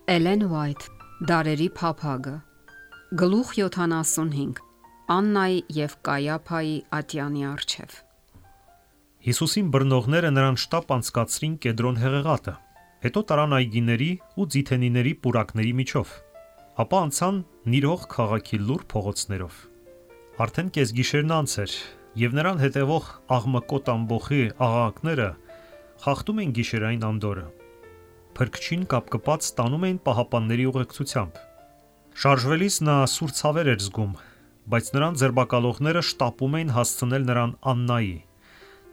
Էլեն Ուայթ, Դարերի փափագը, գլուխ 75, Աննայի և Կայափայի ատյանի առջև։ Հիսուսին բռնողները նրան շտապ անցկացրին Կեդրոն հեղեղատը, հետո տարան այգիների ու ձիթենիների պուրակների միջով, ապա անցան Նիրող քաղաքի լուռ փողոցներով։ Արդեն կեսգիշերն անց էր, և նրան հետևող աղմկոտ ամբոխի աղաղակները խախտում են գիշերային անդորրը։ Փրկչին կապկպած տանում էին պահապանների ուղեկցությամբ։ Շարժվելիս նա սուր ցավեր էր զգում, բայց նրան ձերբակալողները շտապում էին հասցնել նրան Աննայի,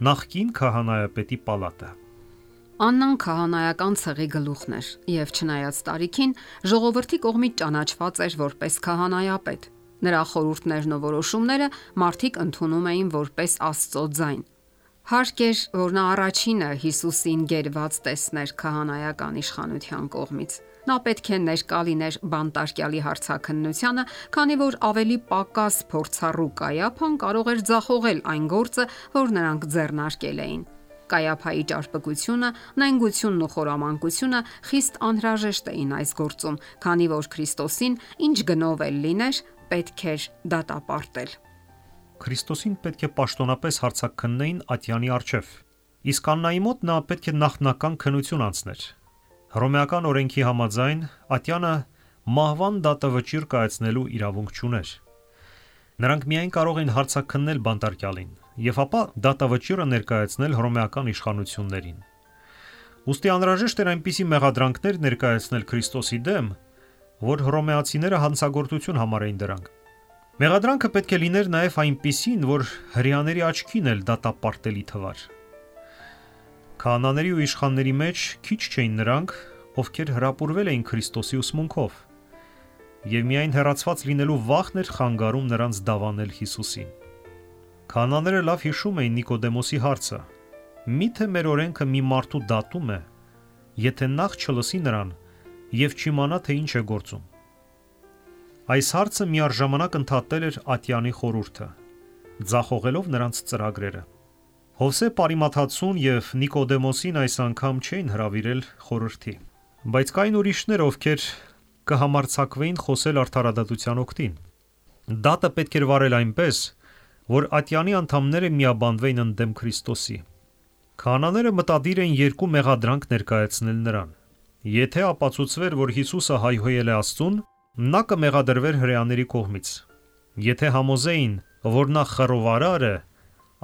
նախկին քահանայապետի պալատը։ Աննան քահանայական ցեղի գլուխն էր և չնայած տարիքին ժողովրդի կողմից ճանաչված էր որպես քահանայապետ։ Նրա խորհուրդներն ու որոշումները մարդիկ ընդունում էին որպես Աստծո ձայն։ Հարկ էր, որ նա առաջինը Հիսուսին գերված տեսներ քահանայական իշխանության կողմից։ Նա պետք է ներկա լիներ բանտարկյալի հարցաքննությանը, քանի որ ավելի պակաս փորձառու Կայափան կարող էր ձախողել այն գործը, որ նրանք ձեռնարկել էին։ Կայափայի ճարպկությունը, նենգությունն ու խորամանկությունը խիստ անհրաժեշտ էին այս գործում, քանի որ Քրիստոսին ինչ գնով էլ լիներ, պետք էր դատապարտել։ Քրիստոսին պետք է պաշտոնապես հարցաքննեին ատյանի առջև, իսկ Աննայի մոտ նա պետք է նախնական քննություն անցներ։ Հռոմեական օրենքի համաձայն ատյանը մահվան դատավճիռ կայացնելու իրավունք չուներ։ Նրանք միայն կարող էին հարցաքննել բանտարկյալին և ապա դատավճիռը ներկայացնել հռոմեական իշխանություններին։ Ուստի անհրաժեշտ էր այնպիսի մեղադրանքներ ներկայացնել Քրիստոսի դեմ, որ հռոմեացիները հանցագործություն համարեին դրանք։ Մեղադրանքը պետք է լիներ նաև այնպիսին, որ հրեաների աչքին էլ դատապարտելի թվար։ Քահանաների ու իշխանների մեջ քիչ չէին նրանք, ովքեր հրապուրվել էին Քրիստոսի ուսմունքով, և միայն հեռացված լինելու վախն էր խանգարում նրանց դավանել Հիսուսին։ Քահանաները լավ հիշում էին Նիկոդեմոսի հարցը. «Միթե մեր օրենքը մի մարդու դատում է, եթե նախ չլսի նրան և չիմանա, թե ինչ է գործում»։ Այս հարցը միառժամանակ ընդհատել էր ատյանի խորհուրդը, ձախողելով նրանց ծրագրերը։ Հովսե Պարիմաթացուն և Նիկոդեմոսին այս անգամ չէին հրավիրել խորհրդի, բայց կային ուրիշներ, ովքեր կհամարձակվեին խոսել արդարադատության օգտին։ Դատը պետք էր վարել այնպես, որ ատյանի անդամները միաբանվեին ընդդեմ Քրիստոսի։ Քահանաները մտադիր էին երկու մեղադրանք ներկայացնել նրան։ Եթե ապացուցվեր, որ Հիսուսը հայհոյել է Աստծուն, նա կմեղադրվեր հրեաների կողմից։ Եթե համոզեին, որ նա խռովարար է,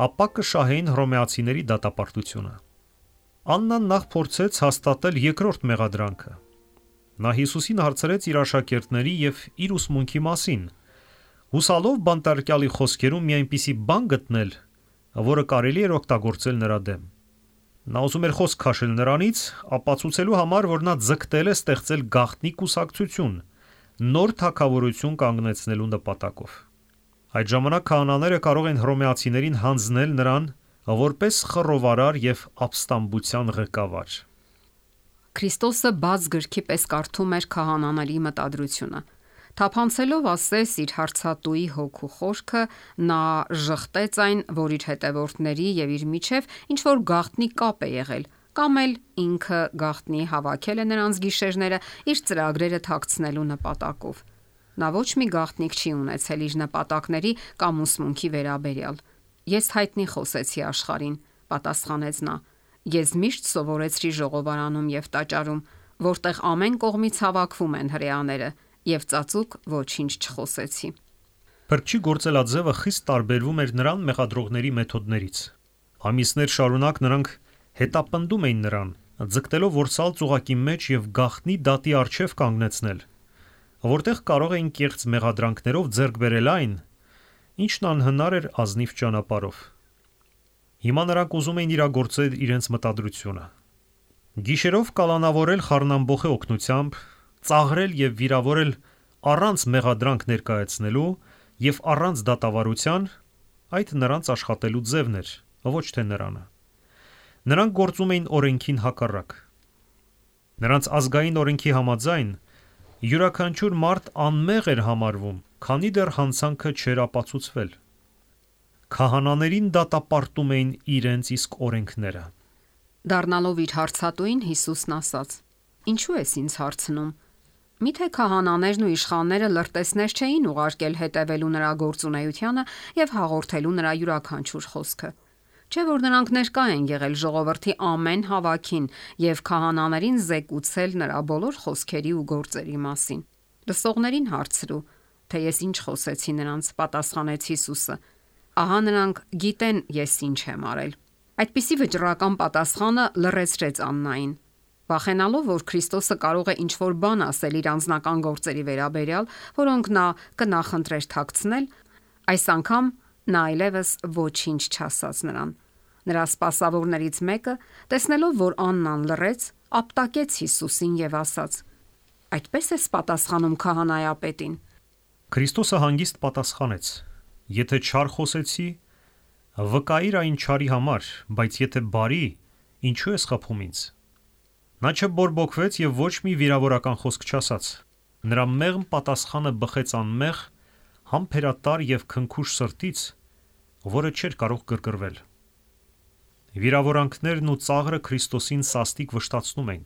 ապա կշահեին հռոմեացիների դատապարտությունը։ Աննան նախ փորձեց հաստատել երկրորդ մեղադրանքը։ Նա Հիսուսին հարցրեց իր աշակերտների և իր ուսմունքի մասին, հուսալով բանտարկյալի խոսքերում մի այնպիսի բան գտնել, որը կարելի էր օգտագործել նրա դեմ։ Նա ուզում էր խոսք քաշել նրանից, ապացուցելու համար, որ նա ձգտել է ստեղծել գաղտնի կուսակցություն, նոր թագավորություն կանգնեցնելու նպատակով։ Այդ ժամանակ քահանաները կարող են հռոմեացիներին հանձնել նրան որպես խռովարար և ապստամբության ղեկավար։ Քրիստոսը բաց գրքի պես կարդում էր քահանաների մտադրությունը։ Թափանցելով ասես իր հարցատուի հոգու խորքը, նա ժխտեց այն, որ իր հետևորդների և իր միջև ինչ-որ գաղտնի կապ է եղել, կամ էլ ինքը գաղտնի հավաքել է նրանց գիշերները իր ծրագրերը թաքցնելու նպատակով։ Նա ոչ մի գաղտնիք չի ունեցել իր նպատակների կամ ուսմունքի վերաբերյալ։ «Ես հայտնի խոսեցի աշխարհին», պատասխանեց նա։ «Ես միշտ սովորեցրի ժողովարանում և տաճարում, որտեղ ամեն կողմից հավաքվում են հրեաները, և ծածուկ ոչինչ չխոսեցի»։ Փրկչի գործելաձևը խիստ տարբերվում էր նրան մեղադրողների մեթոդներից։ Ամիսներ շարունակ նրանք հետապնդում էին նրան, ձգտելով որսալ ծուղակի մեջ և գաղտնի դատի առջև կանգնեցնել, որտեղ կարող էին կեղծ մեղադրանքներով ձեռք բերել այն, ինչն անհնար էր ազնիվ ճանապարհով։ Հիմա նրանք ուզում էին իրագործել իրենց մտադրությունը։ Գիշերով կալանավորել խառնամբոխի օգնությամբ, ծաղրել և վիրավորել առանց մեղադրանք ներկայացնելու և առանց դատավարության, այդ նրանց աշխատելու ձևն էր, ոչ թե նրանը։ Նրանք գործում էին օրենքին հակառակ։ Նրանց ազգային օրենքի համաձայն յուրաքանչյուր մարդ անմեղ էր համարվում, քանի դեռ հանցանքը չէր ապացուցվել։ Քահանաներին դատապարտում էին իրենց իսկ օրենքները։ Դառնալով իր հարցատուին, Հիսուսն ասաց. «Ինչու ես ինձ հարցնում, Միթե քահանաներն ու իշխանները լրտեսներ չէին ուղարկել հետևելու նրա գործունեությանը եւ հաղորդելու նրա յուրաքանչյուր խոսքը։ Չէ՞ որ նրանք ներկա են եղել ժողովրդի ամեն հավաքին եւ քահանաներին զեկուցել նրա բոլոր խոսքերի ու գործերի մասին։ Լսողներին հարցրու, թե ես ինչ խոսեցի նրանց, պատասխանեց Հիսուսը։ Ահա նրանք գիտեն ես ինչ եմ արել։ Այդպիսի վճռական պատասխանը լռեցրեց Աննային։ Վախենալով, որ Քրիստոսը կարող է ինչ-որ բան ասել իր անձնական գործերի վերաբերյալ, որոնք նա կնախընտրեր թաքցնել, այս անգամ նա այլևս ոչինչ չասաց նրան։ Նրա սպասավորներից մեկը, տեսնելով, որ Աննան լռեց, ապտակեց Հիսուսին եւ ասաց. Այդպես ես պատասխանում քահանայապետին։ Քրիստոսը հանգիստ պատասխանեց. Եթե չար խոսեցի, վկայիր այն չարի համար, բայց եթե բարի, ինչու ես խփում ինձ։ Նա չբորբոքվեց եւ ոչ մի վիրավորական խոսք չասաց։ Նրա մեղմ պատասխանը բխեց անմեղ, համբերատար եւ քնքուշ սրտից, որը չէր կարող կրկրվել։ Վիրավորանքներն ու ծաղրը Քրիստոսին սաստիկ վշտացնում էին։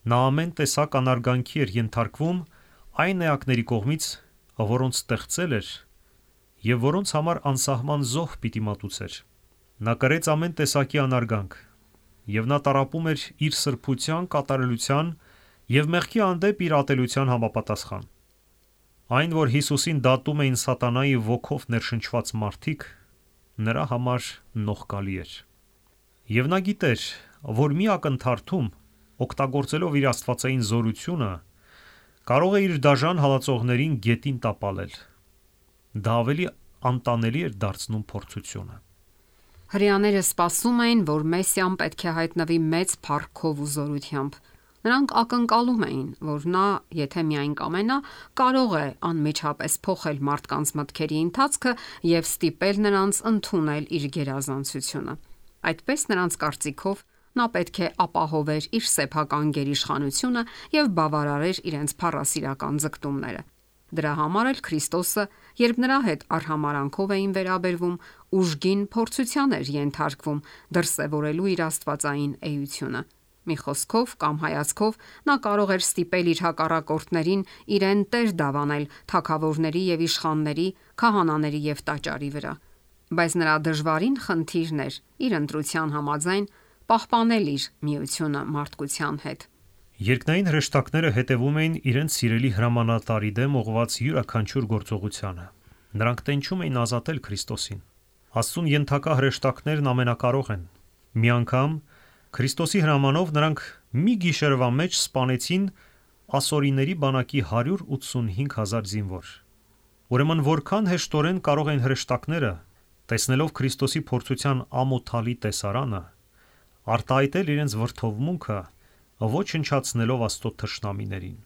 Նա ամեն տեսակ անարգանքի էր ենթարկվում այն էակների կողմից, որոնց ստեղծել էր եւ որոնց համար անսահման զոհ պիտի մատուցեր։ Նա կրեց ամեն տեսակի անարգանք եւ նա տառապում էր իր սրբության, կատարելության եւ մեղքի հանդեպ իր ատելության համապատասխան։ Այն, որ Հիսուսին դատում էին սատանայի ոգով ներշնչված մարդիկ, նրա համար նողկալի էր։ Եվ նա գիտեր, որ մի ակնթարթում, օգտագործելով իր աստվածային զորությունը, կարող է իր դաժան հալածողներին գետին տապալել։ Դա ավելի անտանելի էր դարձնում փորձությունը։ Հրեաները սպասում էին, որ Մեսիան պետք է հայտնվի մեծ փառքով ու զորությամբ։ Նրանք ակնկալում էին, որ նա, եթե միայն կամենա, կարող է անմիջապես փոխել մարդկանց մտքերի ընթացքը եւ ստիպել նրանց ընդունել իր գերազանցությունը։ Այդպես նրանց կարծիքով նա պետք է ապահովեր իր սեփական գերիշխանությունը եւ բավարարեր իրենց փառասիրական ձգտումները։ Դրա համար էլ Քրիստոսը, երբ նրա հետ արհամարանքով էին վերաբերվում, ուժգին փորձության էր ենթարկվում դրսևորելու իր աստվածային էությունը։ Մի խոսքով կամ հայացքով նա կարող էր ստիպել իր հակառակորդներին իրեն տեր դավանել թագավորների եւ իշխանների, քահանաների եւ տաճարի վրա։ Բայց նրա դժվարին խնդիրն էր իր ընտրության համաձայն պահպանել իր միությունը մարդկության հետ։ Երկնային հրեշտակները հետևում էին իրենց սիրելի հրամանատարի դեմ ուղղված յուրաքանչյուր գործողությանը։ Նրանք տենչում էին ազատել Քրիստոսին։ Աստծուն ենթակա հրեշտակներն ամենակարող են։ Մի անգամ Քրիստոսի հրամանով նրանք մի գիշերվա մեջ սպանեցին ասորիների բանակի 185,000 զինվոր։ Ուրեմն որքան հեշտորեն կարող են հրեշտակները, տեսնելով Քրիստոսի փորձության ամոթալի տեսարանը, արտահայտել իրենց վրդովմունքը, ոչնչացնելով Աստծո թշնամիներին։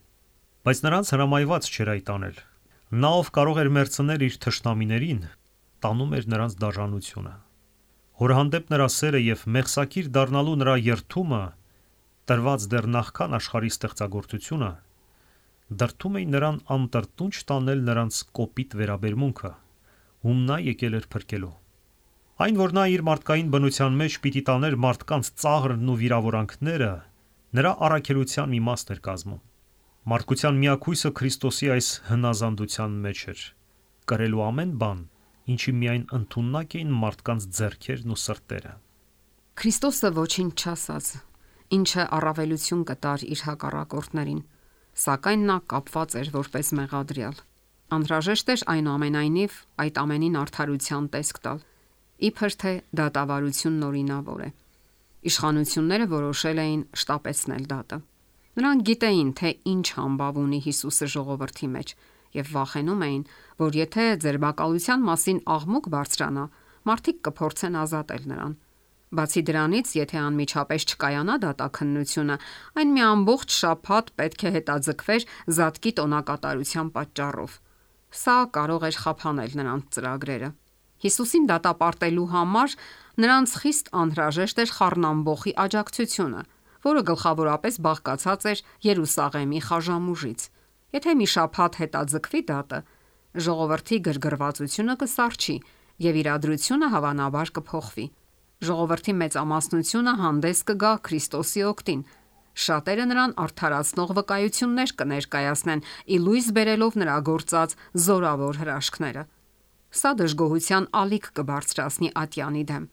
Բայց նրանց հրամայված չէր այդ անել։ Նա, ով կարող էր մերձնել իր թշնամիներին, տանում էր նրանց դաժանությունը։ Հոր հանդեպ նրա սերը եւ մեղսակիր դառնալու նրա երթումը, տրված դեռ նախքան աշխարհի ստեղծագործությունը, դրդում էին նրան անտրտունջ տանել նրանց կոպիտ վերաբերմունքը, ում նա եկել էր փրկելու։ Այն, որ նա իր մարդկային բնության մեջ պիտի տաներ մարդկանց ծաղրն ու վիրավորանքները, նրա առաքելության մի մասն էր կազմում։ Մարդկության միակույսը Քրիստոսի այս հնազանդության մեջ էր, կրելու ամեն բան, ինչի միայն ընդունակ էին մարդկանց ձեռքերն ու սրտերը։ Քրիստոսը ոչինչ չասաց, ինչը առավելություն կտար իր հակառակորդներին, սակայն նա կապված էր որպես մեղադրյալ։ Անհրաժեշտ էր այնուամենայնիվ այդ ամենին արդարության տեսք տալ, իբր թե դատավարությունն օրինավոր է։ Իշխանությունները որոշել էին շտապեցնել դատը։ Նրանք գիտեին, թե ինչ համբավ ունի Հիսուսը ժողովրդի մեջ եւ վախենում էին, որ եթե ձերբակալության մասին աղմուկ բարձրանա, մարդիկ կփորձեն ազատել նրան։ Բացի դրանից, եթե անմիջապես չկայանա դատաքննությունը, այն մի ամբողջ շաբաթ պետք է հետաձգվեր զատկի տոնակատարության պատճառով։ Սա կարող էր խափանել նրանց ծրագրերը։ Հիսուսին դատապարտելու համար նրանց խիստ անհրաժեշտ էր խառնամբոխի աջակցությունը, որը գլխավորապես բաղկացած էր Երուսաղեմի խաժամուժից։ Եթե մի շաբաթ հետաձգվի դատը, ժողովրդի գրգռվածությունը կսառչի եւ իրադրությունը հավանաբար կփոխվի։ Ժողովրդի մեծամասնությունը հանդես կգա Քրիստոսի օգտին Շատերը նրան արդարացնող վկայություններ կներկայացնեն, ի լույս բերելով նրա գործած զորավոր հրաշքները։ Սա դժգոհության ալիք կբարձրացնի ատյանի դեմ։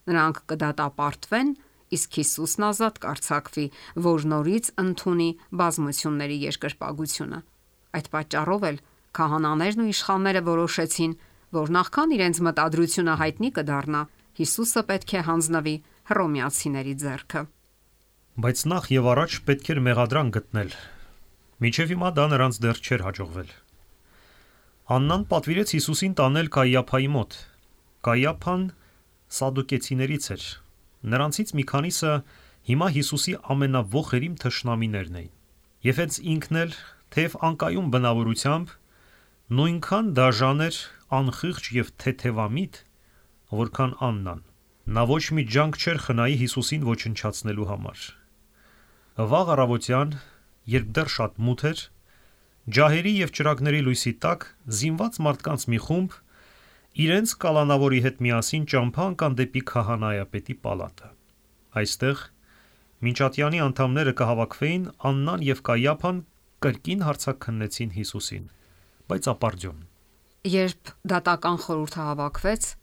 Նրանք կդատապարտվեն, իսկ Հիսուսն ազատ կարձակվի, որ նորից ընդունի բազմությունների երկրպագությունը։ Այդ պատճառով էլ քահանաներն ու իշխանները որոշեցին, որ նախքան իրենց մտադրությունը հայտնի կդառնա, Հիսուսը պետք է հանձնվի հռոմեացիների ձեռքը։ Բայց նախ եւ առաջ պետք էր մեղադրանք գտնել։ Մինչև հիմա դա նրանց դեռ չէր հաջողվել։ Աննան պատվիրեց Հիսուսին տանել Կայիափայի մոտ։ Կայիափան սադուկեցիներից էր։ Նրանցից մի քանիսը հիմա Հիսուսի ամենավոխերիմ թշնամիներն էին։ Եվ հենց ինքն էլ, թեև անկայուն բնավորությամբ, նույնքան դաժան էր, անխիղճ եւ թեթևամիտ, որքան Աննան։ Նա ոչ մի ջանք չէր խնայի Հիսուսին ոչնչացնելու համար։ Վաղ առավոտյան, երբ դեռ շատ մութ էր, ջահերի եւ ճրագների լույսի տակ զինված մարդկանց մի խումբ իրենց կալանավորի հետ միասին ճամփա ընկան դեպի քահանայապետի պալատը։ Այստեղ մինչատյանի անդամները կհավաքվեին, Աննան եւ Կայիափան կրկին հարցաքննեցին Հիսուսին, բայց ապարդյուն։ Երբ դատական խորհուրդը հավաքվեց,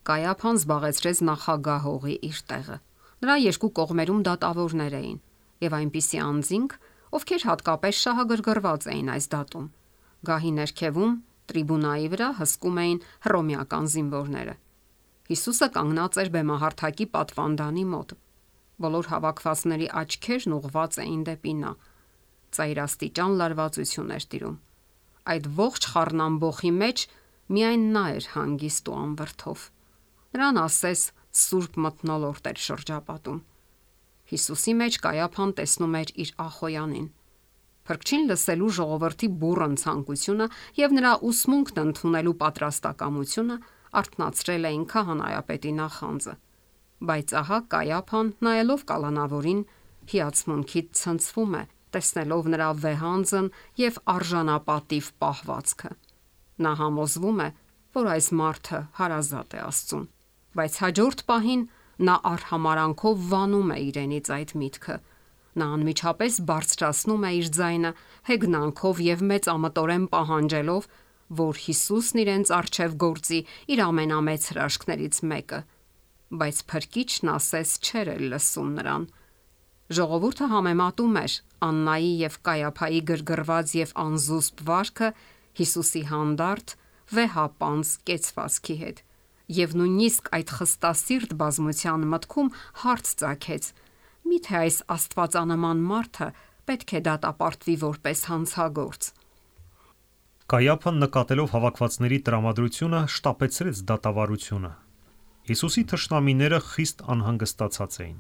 Կայիափան զբաղեցրեց նախագահողի իր տեղը։ Նրա երկու կողմերում դատավորներ էին եւ այնպիսի անձինք, ովքեր հատկապես շահագրգռված էին այս դատում։ Գահի ներքևում տրիբունայի վրա հսկում էին հռոմեական զինվորները։ Հիսուսը կանգնած էր բեմահարթակի պատվանդանի մոտ։ Բոլոր հավաքվածների աչքերն ուղղված էին դեպի նա։ Ծայրաստիճան լարվածություն էր տիրում։ Այդ ողջ խառնամբոխի մեջ միայն նա էր հանգիստ ու անվրդով։ Նրան ասես սուրբ մթնոլորտ էր շրջապատում։ Հիսուսի մեջ Կայիափան տեսնում էր իր ախոյանին։ Փրկչին լսելու ժողովրդի բուռն ցանկությունը եւ նրա ուսմունքն ընդունելու պատրաստակամությունը արթնացրել էին քահանայապետի նախանձը։ Բայց ահա Կայիափան, նայելով կալանավորին, հիացմունքից ցնցվում է, տեսնելով նրա վեհանձն եւ արժանապատիվ պահվածքը։ Նա համոզվում է, որ այս մարդը հարազատ է Աստծուն, բայց հաջորդ պահին նա արհամարանքով վանում է իրենից այդ միտքը։ Նա անմիջապես բարձրացնում է իր ձայնը հեգնանքով եւ մեծամտորեն պահանջելով, որ Հիսուսն իրենց առջև գործի իր ամենամեծ հրաշքներից մեկը, բայց Փրկիչն ասես չէր լսում նրան։ Ժողովուրդը համեմատում էր Աննայի եւ Կայիափայի գրգռված եւ անզուսպ վարքը Հիսուսի հանդարտ վեհապանց կեցվածքի հետ, եւ նույնիսկ այդ խստասիրտ բազմության մտքում հարց ծագեց. միթե այս աստվածանման մարդը պետք է դատապարտվի որպես հանցագործ։ Կայիափան նկատելով հավաքվածների տրամադրությունը շտապեցրեց դատավարությունը։ Հիսուսի թշնամիները խիստ անհանգստացած էին։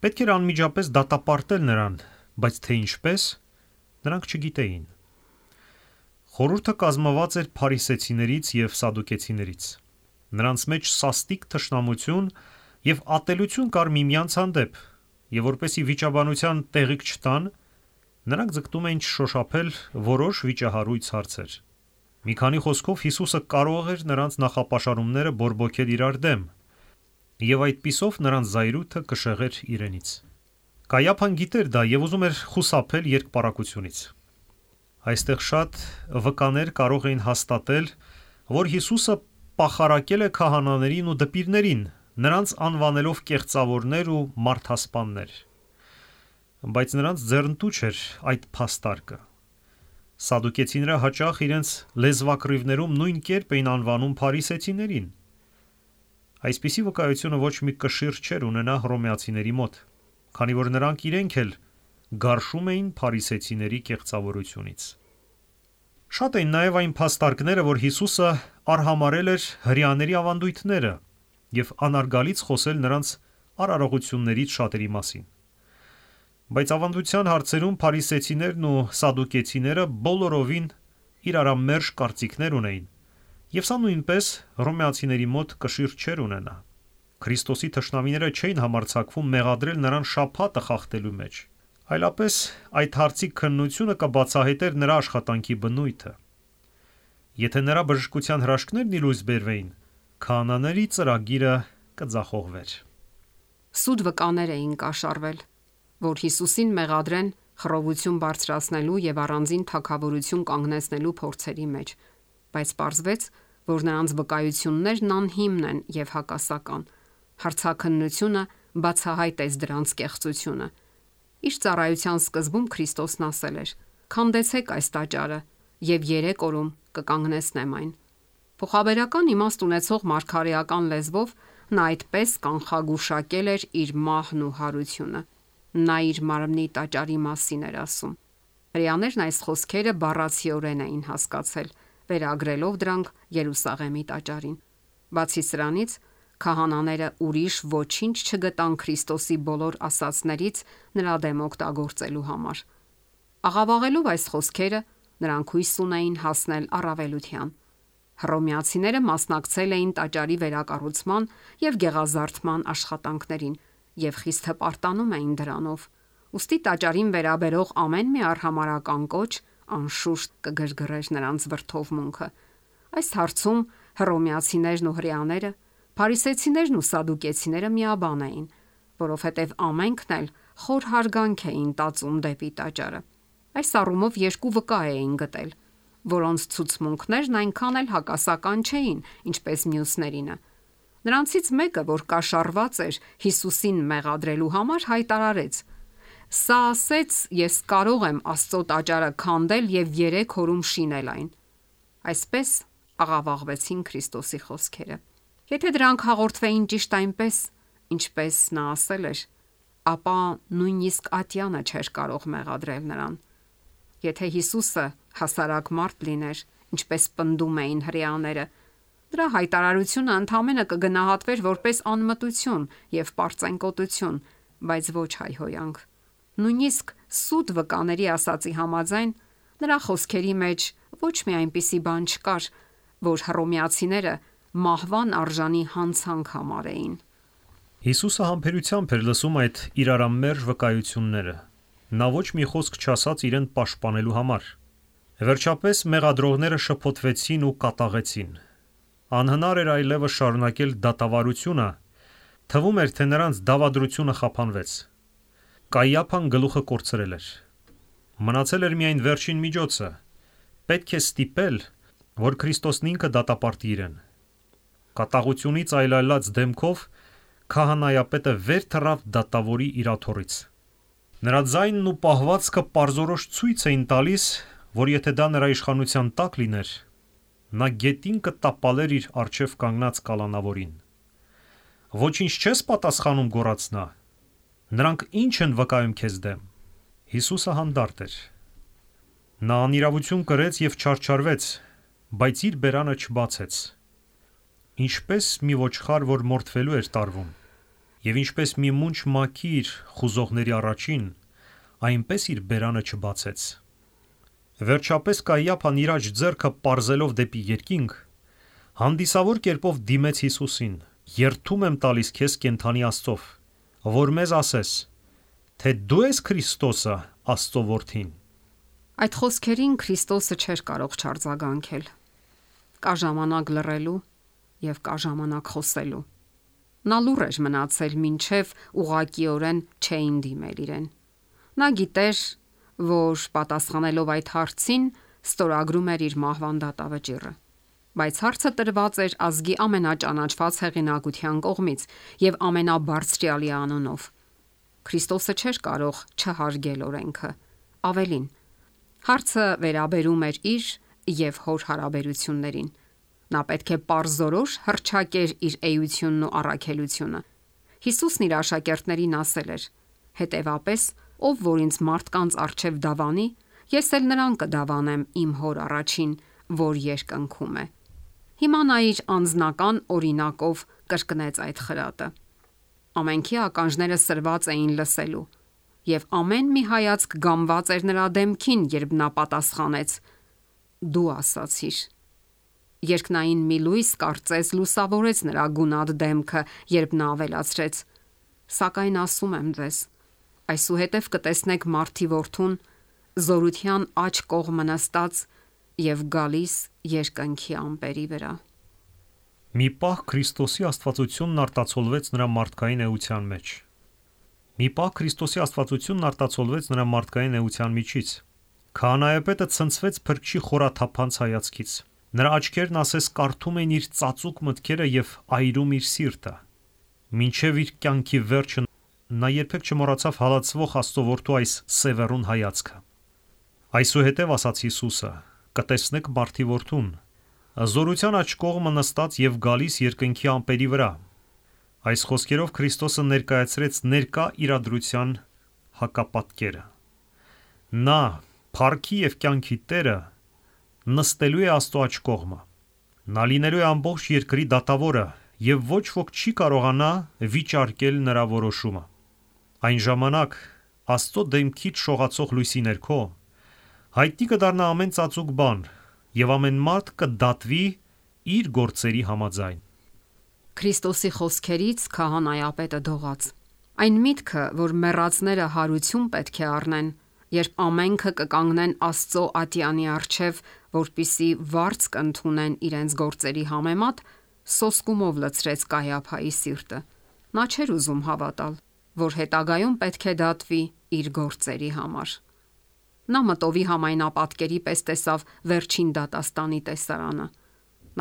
Պետք էր անմիջապես դատապարտել նրան, բայց թե ինչպես, նրանք չգիտեին։ Խորհուրդը կազմված էր փարիսեցիներից եւ սադուկեցիներից։ Նրանց մեջ սաստիկ թշնամություն եւ ատելություն կար միմյանց հանդեպ, եւ որպեսի վիճաբանության տեղիք չտան, նրանք ձգտում էին շոշափել որոշ վիճահարույց հարցեր։ Մի քանի խոսքով Հիսուսը կարող էր նրանց նախապաշարումները բորբոքել իրար դեմ, եւ այդպիսով նրանց զայրույթը կշեղեր իրենից։ Կայիափան գիտեր դա եւ ուզում էր խուսափել երկպարակությունից։ Այստեղ շատ վկաներ կարող էին հաստատել, որ Հիսուսը պախարակել է քահանաներին ու դպիրներին, նրանց անվանելով կեղծավորներ ու մարդասպաններ։ Բայց նրանց ձեռնտու չէր այդ փաստարկը։ Սադուկեցիները հաճախ իրենց լեզվակռիվներում նույն կերպ էին անվանում փարիսեցիներին։ Այսպիսի վկայությունը ոչ մի կշիռ չէր ունենա հռոմեացիների մոտ, քանի որ նրանք իրենք էլ գարշում էին փարիսեցիների կեղծավորությունից։ Շատ էին նաև այն փաստարկները, որ Հիսուսը արհամարել էր հրեաների ավանդույթները եւ անարգալից խոսել նրանց արարողություններից շատերի մասին։ Բայց ավանդության հարցերում փարիսեցիներն ու սադուկեցիները բոլորովին իրարամերժ կարծիքներ ունեին, եւ սա նույնպես հռոմեացիների մոտ կշիռ չէր ունենա։ Քրիստոսի թշնամիները չէին համարձակվում մեղադրել նրան շաբաթը խախտելու մեջ, այլապես այդ հարցի քննությունը կբացահայտեր նրա աշխատանքի բնույթը։ Եթե նրա բժշկության հրաշքներն ի լույս բերվեին, քահանաների ծրագիրը կձախողվեր։ Սուտ վկաներ էին կաշառվել։ որ Հիսուսին մեղադրեն խռովություն բարձրացնելու եւ առանձին թագավորություն կանգնեցնելու փորձերի մեջ, բայց պարզվեց, որ նրանց վկայություններն անհիմն են եւ հակասական։ Հարցաքննությունը բացահայտեց դրանց կեղծությունը։ Իր ծառայության սկզբում Քրիստոսն ասել էր. «Քանդեցեք այս տաճարը եւ 3 օրում կկանգնեցնեմ այն»։ Փոխաբերական իմաստ ունեցող մարգարեական լեզվով նա այդպես կանխագուշակել էր իր մահն ու հարությունը։ Նա իր մարմնի տաճարի մասին էր ասում։ Հրեաներն այս խոսքերը բառացիորեն էին հասկացել, վերագրելով դրանք Երուսաղեմի տաճարին։ Բացի սրանից, քահանաները ուրիշ ոչինչ չգտան Քրիստոսի բոլոր ասացներից նրա դեմ օգտագործելու համար։ Աղավաղելով այս խոսքերը, նրանք հույս ունեին հասնել առավելության։ Հռոմեացիները մասնակցել էին տաճարի վերակառուցման եւ գեղազարդման աշխատանքներին եւ խիստ հպարտանում էին դրանով։ Ուստի տաճարին վերաբերող ամեն մի արհամարհական կոչ անշուշտ կգրգռեր նրանց վրդովմունքը։ Այս հարցում հռոմեացիներն ու հրեաները, փարիսեցիներն ու սադուկեցիները միաբան էին, որովհետև ամենքն էլ խոր հարգանք էին տածում դեպի տաճարը։ Այս առումով երկու վկա էին գտել, որոնց ցուցմունքներն այնքան էլ հակասական չէին, ինչպես մյուսներինը։ Նրանցից մեկը, որ կաշառված էր Հիսուսին մեղադրելու համար, հայտարարեց. «Սա ասեց, ես կարող եմ Աստծո տաճարը քանդել եւ 3 օրում շինել այն»։ Այսպես աղավաղվեցին Քրիստոսի խոսքերը։ Եթե դրանք հաղորդվեին ճիշտ այնպես, ինչպես նա ասել էր, ապա նույնիսկ ատյանը չէր կարող մեղադրել նրան։ Եթե Հիսուսը հասարակ մարդ լիներ, ինչպես պնդում էին հրեաները, դրա հայտարարությունը ընդհանրապես կգնահատվեր որպես անմտություն եւ պարծենկոտություն, բայց ոչ հայհոյանք։ Նույնիսկ սուտ վկաների ասացի համաձայն, նրա խոսքերի մեջ ոչ մի այնպիսի բան չկար, որ հռոմեացիները մահվան արժանի հանցանք համարեին։ Հիսուսը համբերությամբ էր լսում այդ իրարամերժ վկայությունները։ Նա ոչ մի խոսք չասաց իրեն պաշտպանելու համար։ Վերջապես մեղադրողները շփոթվեցին ու կատաղեցին։ Անհնար էր այլևս շարունակել դատավարությունը, թվում էր, թե նրանց դավադրությունը խափանվեց։ Կայիափան գլուխը կորցրել էր։ Մնացել էր միայն վերջին միջոցը։ Պետք է ստիպել, որ Քրիստոսն ինքը դատապարտի իրեն։ Կատաղությունից այլայլած դեմքով քահանայապետը վեր թռավ դատավորի իրաթոռից։ Նրա ձայնն ու պահվածքը պարզորոշ ցույց էին տալիս, որ եթե դա նրա իշխանության տակ լիներ, նա գետին կտապալեր իր առջև կանգնած կալանավորին։ «Ոչինչ չես պատասխանում», գոռաց նա։ «Նրանք ինչ են վկայում քեզ դեմ»։ Հիսուսը հանդարտ էր։ Նա անիրավություն կրեց եւ չարչարվեց, բայց իր բերանը չբացեց։ Ինչպես մի ոչխար, որ մորթվելու էր տարվում, եւ ինչպես մի մունջ մաքիր խուզողների առաջին, այնպես իր բերանը չբացեց։ Վերջապես Կայիափան իր աջ ձեռքը պարզելով դեպի երկինք, հանդիսավոր կերպով դիմեց Հիսուսին. «Երդում եմ տալիս քեզ կենդանի Աստծով, որ մեզ ասես, թե դու ես Քրիստոսը, Աստծո որդին»։ Այդ խոսքերին Քրիստոսը չէր կարող չարձագանքել։ Կա ժամանակ լռելու եւ կա ժամանակ խոսելու։ Նա լուռ էր մնացել, մինչև ուղղակիորեն չէին դիմել իրեն։ Նա գիտեր, որ պատասխանելով այդ հարցին ստորագրում էր իր մահվան դատավճիռը։ Բայց հարցը տրված էր ազգի ամենաճանաչված հեղինակության կողմից եւ ամենաբարձրյալի անունով։ Քրիստոսը չէր կարող չհարգել օրենքը։ Ավելին, հարցը վերաբերում էր իր եւ հոր հարաբերություններին։ Նա պետք է պարզորոշ հռչակեր իր էությունն ու առաքելությունը։ Հիսուսն իր աշակերտներին ասել էր. «Հետևապես, ով որ ինձ մարդկանց առջև դավանի, ես էլ նրան կդավանեմ իմ հոր առաջին, որ երկնքում է»։ Հիմա նա իր անձնական օրինակով կրկնեց այդ խրատը։ Ամենքի ականջները սրված էին լսելու, եւ ամեն մի հայացք գամված էր նրա դեմքին, երբ նա պատասխանեց. «Դու ասացիր»։ Երկնային մի լույս կարծես լուսավորեց նրա գունատ դեմքը, երբ նա ավելացրեց. «Սակայն ասում եմ ձեզ, այսուհետև կտեսնեք Մարդի Որդուն զորության աջ կողմը նստած եւ գալիս երկնքի ամպերի վրա»։ Մի պահ Քրիստոսի աստվածությունն արտացոլվեց նրա մարդկային էության մեջ։ Մի պահ Քրիստոսի աստվածությունն արտացոլվեց նրա մարդկային էության միջից։ Քահանայապետը ցնցվեց Փրկչի խորաթափանց հայացքից։ Նրա աչքերն ասես կարդում էին իր ծածուկ մտքերը եւ այրում իր սիրտը։ Մինչև իր կյանքի վերջը նա երբեք չմոռացավ հալածվող Աստծո որդու այս սևեռուն հայացքը։ Այսուհետև ասաց Հիսուսը. «Կտեսնեք մարդի որդուն, զորության աջ կողմը նստած եւ գալիս երկնքի ամպերի վրա»։ Այս խոսքերով Քրիստոսը ներկայացրեց ներկա իրադրության հակապատկերը։ Նա, փառքի եւ կյանքի Տերը, նստելու է Աստծո աջ կողմը։ Նա լինելու է ամբողջ երկրի դատավորը եւ ոչ ոք չի կարողանա վիճարկել նրա որոշումը։ Այն ժամանակ Աստծո դեմքից շողացող լույսի ներքո հայտնի կդառնա ամեն ծածուկ բան եւ ամեն մարդ կդատվի իր գործերի համաձայն։ Քրիստոսի խոսքերից քահանայապետը դողաց։ Այն միտքը, որ մեռածները հարություն պետք է առնեն, երբ ամենքը կկանգնեն Աստծո ատյանի առջև, որպիսի վարձ կընդունեն իրենց գործերի համեմատ, սոսկումով լցրեց Կայափայի սիրտը։ Նա չէր ուզում հավատալ, որ հետագայում պետք է դատվի իր գործերի համար։ Նա մտովի համայնապատկերի պես տեսավ վերջին դատաստանի տեսարանը։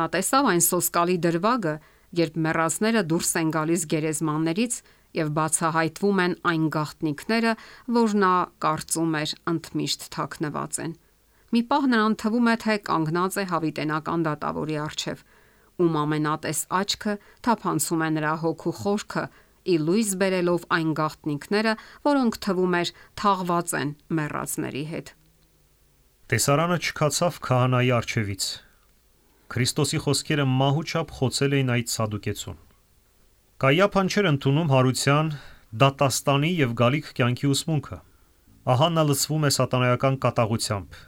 Նա տեսավ այն սոսկալի դրվագը, երբ մեռածները դուրս են գալիս գերեզմաններից եւ բացահայտվում են այն գաղտնիքները, որ նա կարծում էր ընդմիշտ թաքնված են։ Մի պահ նրան թվում է, թե կանգնած է հավիտենական դատավորի առջև, ում ամենատես աչքը թափանցում է նրա հոգու խորքը, ի լույս բերելով այն գաղտնիքները, որոնք թվում էր թաղված են մեռածների հետ։ Տեսարանը չքացավ քահանայի առջևից։ Քրիստոսի խոսքերը մահուչափ խոցել էին այդ սադուկեցուն։ Կայափան չէր ընդունում հարության, դատաստանի եւ գալիք կյանքի ուսմունքը։ Ահա նա լցվում է սատանայական կատաղությամբ։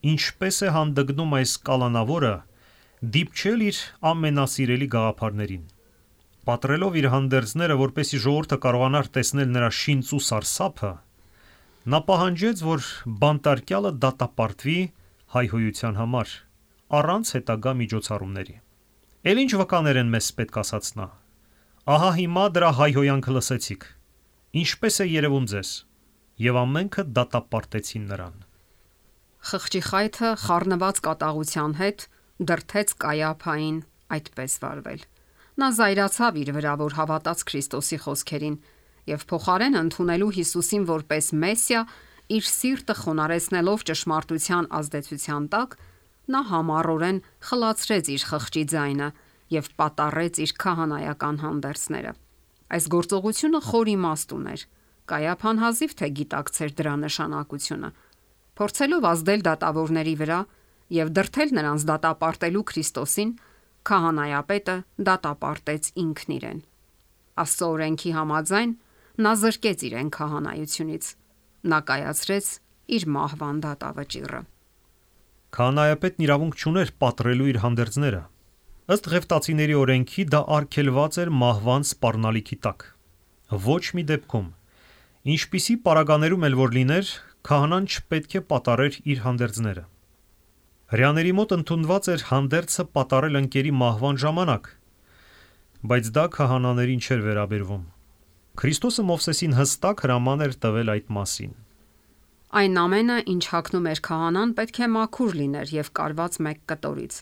Ինչպես է հանդգնում այս կալանավորը դիպչել իր ամենասիրելի գաղափարներին։ Պատրելով իր հանդերձները, որպեսզի ժողովուրդը կարողանար տեսնել նրա շինծու սարսափը, նա պահանջեց, որ բանտարկյալը դատապարտվի հայհոյության համար, առանց հետագա միջոցառումների։ Էլ ինչ վկաներ են մեզ պետք ասաց նա։ Ահա հիմա դրա հայհոյանքը լսեցիք։ Ինչպես է երևում ձեզ։ Եվ ամենքը դատապարտեցին նրան։ Խղճի խայթը խառնված կատաղության հետ դրթեց Կայափային այդպես վարվել։ Նա զայրացավ իր վրա, որ հավատաց Քրիստոսի խոսքերին եւ փոխարեն ընդունելու Հիսուսին որպես Մեսիա, իր սիրտը խոնարհեցնելով ճշմարտության ազդեցության տակ, նա համառորեն խլացրեց իր խղճի ձայնը եւ պատառեց իր քահանայական հանդերձները։ Այս գործողությունը խոր իմաստ ուներ։ Կայափան հազիվ թե գիտակցեր դրա նշանակությունը։ Փորձելով ազդել դատավորների վրա եւ դրթել նրանց դատապարտելու Քրիստոսին, քահանայապետը դատապարտեց ինքն իրեն։ Աստծո օրենքի համաձայն նա զրկեց իրեն քահանայությունից։ Նա կայացրեց իր մահվան դատավճիռը։ Քահանայապետն իրավունք չուներ պատռելու իր հանդերձները։ Ըստ Ղևտացիների օրենքի դա արգելված էր մահվան սպառնալիքի տակ։ Ոչ մի դեպքում, ինչպիսի պարագաներում էլ որ լիներ, քահանան չպետք է պատառեր իր հանդերձները։ Հրեաների մոտ ընդունված էր հանդերձը պատառել ընկերի մահվան ժամանակ, բայց դա քահանաներին չէր վերաբերվում։ Քրիստոսը Մովսեսին հստակ հրաման էր տվել այդ մասին։ Այն ամենը, ինչ հագնում էր քահանան, պետք է մաքուր լիներ եւ կարված մեկ կտորից։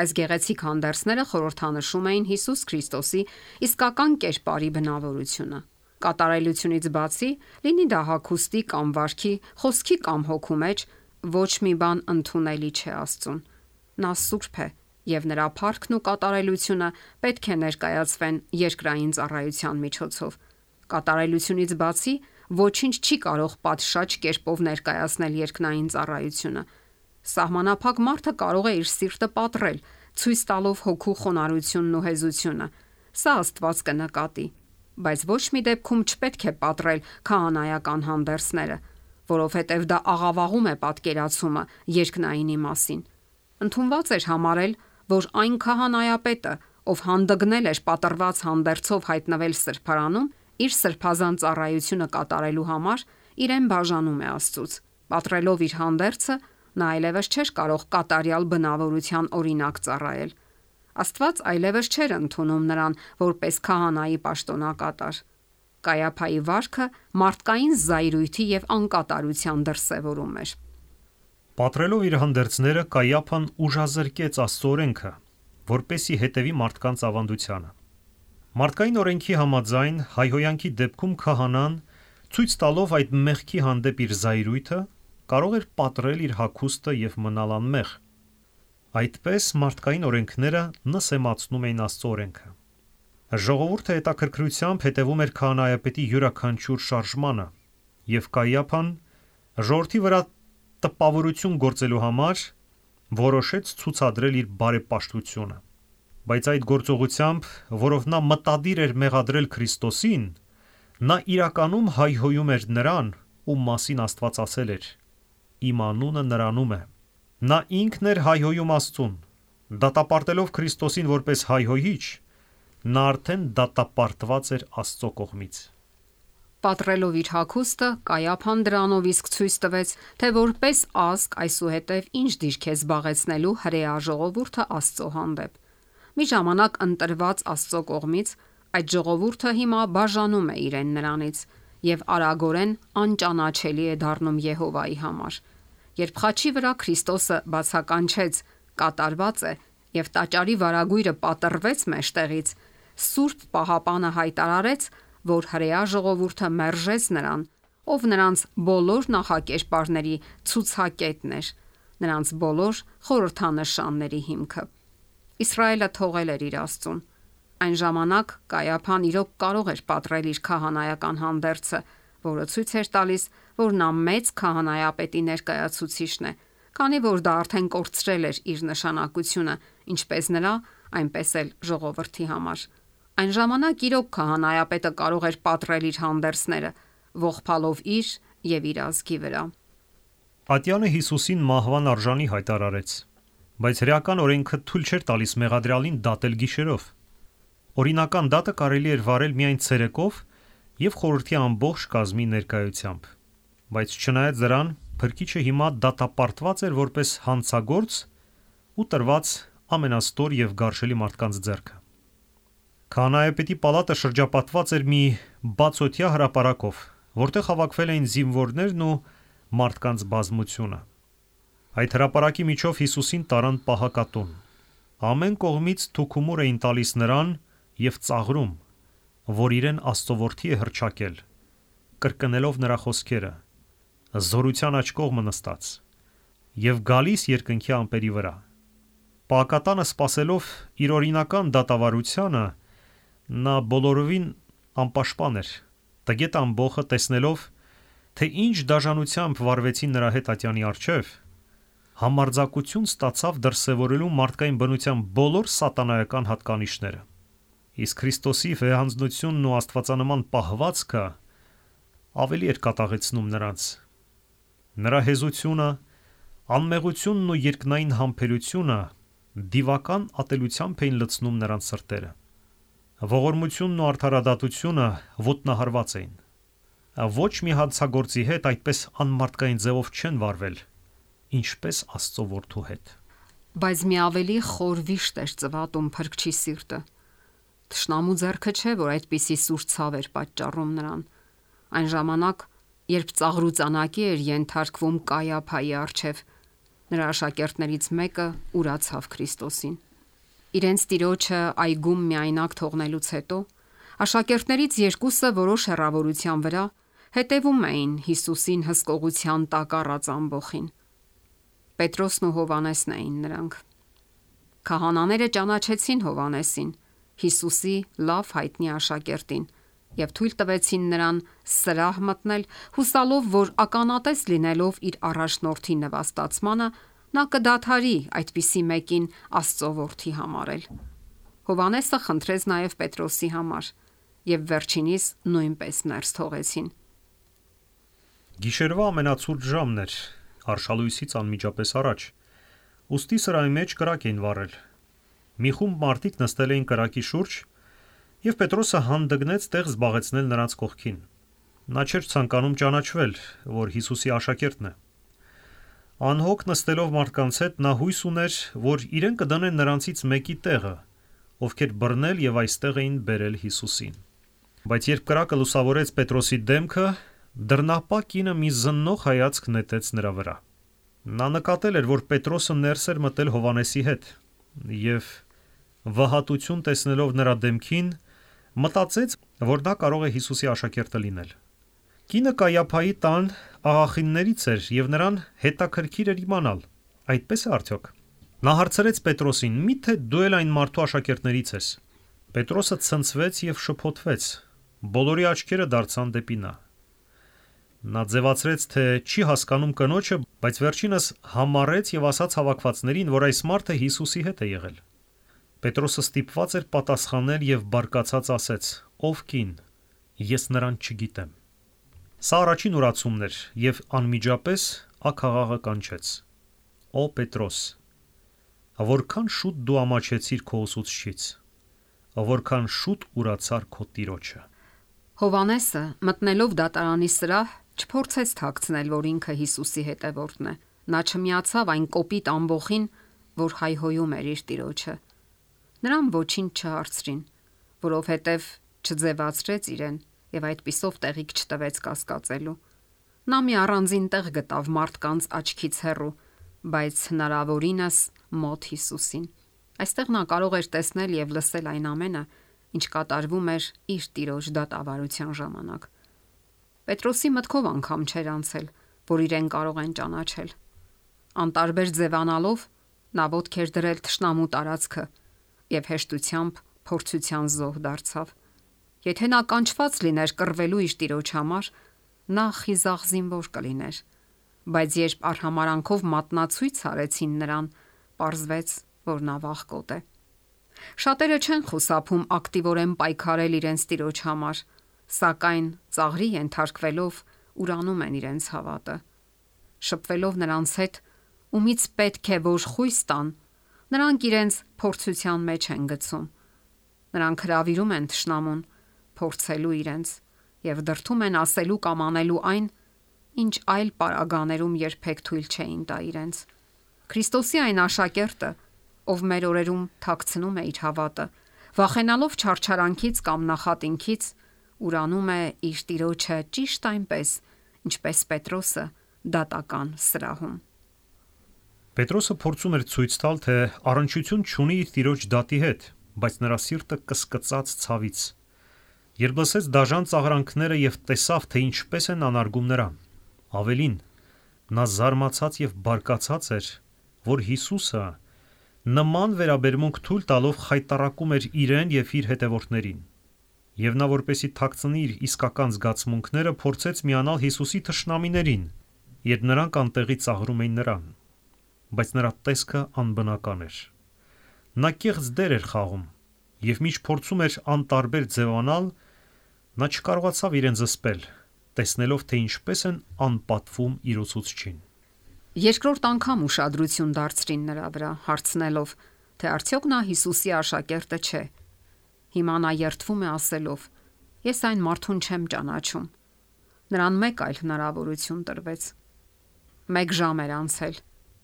Այս գեղեցիկ հանդերձները խորհրդանշում էին Հիսուս Քրիստոսի իսկական կերպարի բնավորությունը։ Կատարելությունից բացի, լինի դա հագուստի կամ վարքի, խոսքի կամ հոգու մեջ, ոչ մի բան ընդունելի չէ Աստծուն։ Նա սուրբ է եւ նրա փառքն ու կատարելությունը պետք է ներկայացվեն երկրային ծառայության միջոցով։ Կատարելությունից բացի ոչինչ չի կարող պատշաճ կերպով ներկայացնել երկնային ծառայությունը։ Սահմանափակ մարդը կարող է իր սիրտը պատռել, ցույց տալով հոգու խոնարհությունն ու հեզությունը։ Սա Աստված կնկատի, բայց ոչ մի դեպքում չպետք է պատռել քահանայական հանդերձները, որովհետև դա աղավաղում է պատկերացումը երկնայինի մասին։ Ընդունված էր համարել, որ այն քահանայապետը, ով հանդգնել էր պատռված հանդերձով հայտնվել սրբարանում, իր սրբազան ծառայությունը կատարելու համար իրեն բաժանում է Աստծուց։ Պատռելով իր հանդերձը, նա այլևս չէր կարող կատարյալ բնավորության օրինակ ծառայել։ Աստված այլևս չէր ընդունում նրան որպես քահանայի պաշտոնակատար։ Կայափայի վարքը մարդկային զայրույթի եւ անկատարության դրսեւորում էր։ Պատրելով իր հանդերձները, Կայափան ուժազրկեց Աստծո օրենքը, որպեսի հետևի մարդկանց ավանդությանը։ Մարդկային օրենքի համաձայն հայհոյանքի դեպքում քահանան, ցույց տալով այդ մեղքի հանդեպ իր զայրույթը, կարող էր պատռել իր հագուստը եւ մնալ անմեղ։ Այդպես մարդկային օրենքները նսեմացնում էին Աստծո օրենքը։ Ժողովուրդը հետաքրքրությամբ հետևում էր քահանայապետի յուրաքանչյուր շարժմանը, եւ Կայափան ժողովրդի վրա տպավորություն գործելու համար որոշեց ցուցադրել իր բարեպաշտությունը։ Բայց այդ գործողությամբ, որով նա մտադիր էր մեղադրել Քրիստոսին, նա իրականում հայհոյում էր նրան, ում մասին Աստված ասել էր. «Իմ անունը նրանում է»։ Նա ինքն էր հայհոյում Աստծուն։ Դատապարտելով Քրիստոսին որպես հայհոյիչ, նա արդեն դատապարտված էր Աստծո կողմից։ Պատռելով իր հագուստը, Կայափան դրանով իսկ ցույց տվեց, թե որպես ազգ այսուհետև ինչ դիրք է զբաղեցնելու հրեա ժողովուրդը Աստծո հանդեպ։ Մի ժամանակ ընտրված Աստծո կողմից այդ ժողովուրդը հիմա բաժանում է իրեն նրանից եւ արագորեն անճանաչելի է դառնում Եհովայի համար։ Երբ խաչի վրա Քրիստոսը բացականչեց կատարված է եւ տաճարի վարագույրը պատռվեց մեջտեղից, Սուրբ Պահապանը հայտարարեց, որ հրեա ժողովուրդը մերժեց նրան, ով նրանց բոլոր նախակերպարների ցուցակետն էր, նրանց բոլոր խորհրդանշանների հիմքը։ Իսրայելը թողել էր իր Աստծուն։ Այն ժամանակ Կայափան իրոք կարող էր պատռել իր քահանայական հանդերձը, որը ցույց էր տալիս, որ նա մեծ քահանայապետի ներկայացուցիչն է, քանի որ դա արդեն կորցրել էր իր նշանակությունը, ինչպես նրա, այնպես էլ ժողովրդի համար։ Այն ժամանակ իրոք քահանայապետը կարող էր պատռել իր հանդերձները, ողբալով իր եւ իր ազգի վրա։ Ատյանը Հիսուսին մահվան արժանի հայտարարեց, բայց հրեական օրենքը թույլ չէր տալիս մեղադրյալին դատել գիշերով։ Օրինական դատը կարելի էր վարել միայն ցերեկով եւ խորհրդի ամբողջ կազմի ներկայությամբ։ Բայց չնայած դրան, փրկիչը հիմա դատապարտված էր որպես հանցագործ ու տրված ամենաստոր եւ գարշելի մարդկանց ձեռքը։ Քահանայապետի պալատը շրջապատված էր մի բացօթյա հրապարակով, որտեղ հավաքվել էին զինվորներն ու մարդկանց բազմությունը։ Այդ հրապարակի միջով Հիսուսին տարան պահակատուն։ Ամեն կողմից թուքումուր էին տալիս նրան եւ ծաղրում, որ իրեն Աստծո որդի է հռչակել, կրկնելով նրա խոսքերը. «Զորության աջ կողմը նստած» եւ գալիս երկնքի ամպերի վրա։ Պահակատանը սпасելով իր օրինական դատավարությանը, նա բոլորովին անպաշտպան էր։ Տգետ ամբոխը տեսնելով, թե ինչ դաժանությամբ վարվեցին նրա հետ ատյանի առջև, համարձակություն ստացավ դրսևորելու մարդկային բնության բոլոր սատանայական հատկանիշները։ Իսկ Քրիստոսի վեհանձնությունն ու աստվածանման պահվածքը ավելի էր կատաղեցնում նրանց։ Նրա հեզությունը, անմեղությունն ու երկնային համբերությունը դիվական ատելությամբ էին լցնում նրանց սրտերը։ Ողորմությունն ու արդարադատությունը ոտնահարված էին։ Ոչ մի հանցագործի հետ այդպես անմարդկային ձևով չեն վարվել, ինչպես Աստծո որդու հետ։ Բայց մի ավելի խոր վիշտ էր ծվատում փրկչի սիրտը։ Թշնամու ձեռքը չէ, որ այդպիսի սուր ցավ էր պատճառում նրան։ Այն ժամանակ, երբ ծաղրուծանակի էր ենթարկվում Կայափայի առջև, նրա աշակերտներից մեկը ուրացավ Քրիստոսին։ Իրենց տիրոջը այգում միայնակ թողնելուց հետո աշակերտներից երկուսը որոշ հեռավորության վրա հետևում էին Հիսուսին հսկողության տակ առած ամբոխին։ Պետրոսն ու Հովհաննեսն էին նրանք։ Քահանաները ճանաչեցին Հովհաննեսին, Հիսուսի լավ հայտնի աշակերտին, եւ թույլ տվեցին նրան սրահ մտնել, հուսալով, որ ականատես լինելով իր առաջնորդի նվաստացմանը, նա կդադարի այդպիսի մեկին Աստծո որդի համարել։ Հովհաննեսը խնդրեց նաև Պետրոսի համար, եւ վերջինիս նույնպես ներս թողեցին։ Գիշերվա ամենացուրտ ժամն էր, արշալույսից անմիջապես առաջ, ուստի սրահի մեջ կրակ էին վառել։ Մի խումբ մարդիկ նստել էին կրակի շուրջ, եւ Պետրոսը հանդգնեց տեղ զբաղեցնել նրանց կողքին։ Նա չէր ցանկանում ճանաչվել, որ Հիսուսի աշակերտն է։ Անհոգ նստելով մարդկանց հետ, նա հույս ուներ, որ իրեն կդնեն նրանցից մեկի տեղը, ովքեր բռնել եւ այստեղ էին բերել Հիսուսին։ Բայց երբ կրակը լուսավորեց Պետրոսի դեմքը, դռնապահ կինը մի զննող հայացք նետեց նրա վրա։ Նա նկատել էր, որ Պետրոսը ներս էր մտել Հովհաննեսի հետ, եւ վհատություն տեսնելով նրա դեմքին, մտածեց, որ դա կարող է Հիսուսի աշակերտը լինել։ Կինը Կայափայի տան աղախիններից էր եւ նրան հետաքրքիր էր իմանալ, այդպես է արդյոք։ Նա հարցրեց Պետրոսին. «Միթե դու էլ այն մարդու աշակերտներից ես»։ Պետրոսը ցնցվեց եւ շփոթվեց։ Բոլորի աչքերը դարձան դեպի նա։ Նա ձևացրեց, թե չի հասկանում կնոջը, բայց վերջինս համառեց եւ ասաց հավաքվածներին, որ այս մարդը Հիսուսի հետ է եղել։ Պետրոսը ստիպված էր պատասխանել եւ բարկացած ասեց. «Ով կին, ես նրան չգիտեմ»։ Սա առաջին ուրացումն էր եւ անմիջապես աքաղաղը կանչեց. «Օ Պետրոս, որքան շուտ դու ամաչեցիր քո ուսուցչից, որքան շուտ ուրացար քո տիրոջը»։ Հովհաննեսը, մտնելով դատարանի սրահ, չփորձեց թաքցնել, որ ինքը Հիսուսի հետևորդն է։ Նա չմիացավ այն կոպիտ ամբոխին, որ հայհոյում էր իր տիրոջը։ Նրան ոչինչ չհարցրին, որովհետև չձևացրեց իրեն եւ այդպիսով տեղիք չտվեց կասկածելու։ Նա մի առանձին տեղ գտավ մարդկանց աչքից հեռու, բայց հնարավորինս մոտ Հիսուսին։ Այստեղ նա կարող էր տեսնել եւ լսել այն ամենը, ինչ կատարվում էր իր տիրոջ դատավարության ժամանակ։ Պետրոսի մտքով անգամ չէր անցել, որ իրեն կարող են ճանաչել։ Անտարբեր ձևանալով նա ոտք էր դրել թշնամու տարածքը եւ հեշտությամբ փորձության զոհ դարձավ։ Եթե նա կանչված լիներ կռվելու իր տիրոջ համար, նա խիզախ զինվոր կլիներ, բայց երբ արհամարանքով մատնացույց արեցին նրան, պարզվեց, որ նա վախկոտ է։ Շատերը չեն խուսափում ակտիվորեն պայքարել իրենց տիրոջ համար, սակայն ծաղրի ենթարկվելով ուրանում են իրենց հավատը։ Շփվելով նրանց հետ, ումից պետք է որ խույս տան, նրանք իրենց փորձության մեջ են գցում։ Նրանք հրավիրում են թշնամուն փորձելու իրենց եւ դրթում են ասելու կամ անելու այն, ինչ այլ պարագաներում երբեք թույլ չէին տա իրենց։ Քրիստոսի այն աշակերտը, ով մեր օրերում թաքցնում է իր հավատը, վախենալով չարչարանքից կամ նախատինքից, ուրանում է իր տիրոջը ճիշտ այնպես, ինչպես Պետրոսը դատական սրահում։ Պետրոսը փորձում էր ցույց տալ, թե առնչություն չունի իր տիրոջ դատի հետ, բայց նրա սիրտը կսկծաց ցավից։ Երբ լսեց դաժան ծաղրանքները եւ տեսավ, թե ինչպես են անարգում նրան, ավելին, նա զարմացած եւ բարկացած էր, որ Հիսուսը նման վերաբերմունք թույլ տալով խայտառակում էր իրեն եւ իր հետևորդներին։ Եվ նա, որպեսի թաքցնի իր իսկական զգացմունքները, փորձեց միանալ Հիսուսի թշնամիներին, երբ նրանք անտեղի ծաղրում էին նրան, բայց նրա տեսքը անբնական էր։ Նա կեղծ դեր էր խաղում, եւ մինչ փորձում էր անտարբեր ձևանալ, նա չկարողացավ իրեն զսպել, տեսնելով, թե ինչպես են անպատվում իր ուսուցչին։ Երկրորդ անգամ ուշադրություն դարձրին նրա վրա, հարցնելով, թե արդյոք նա Հիսուսի աշակերտը չէ։ Հիմա նա երդվում է ասելով. «Ես այն մարդուն չեմ ճանաչում»։ Նրան մեկ այլ հնարավորություն տրվեց։ 1 ժամ էր անցել,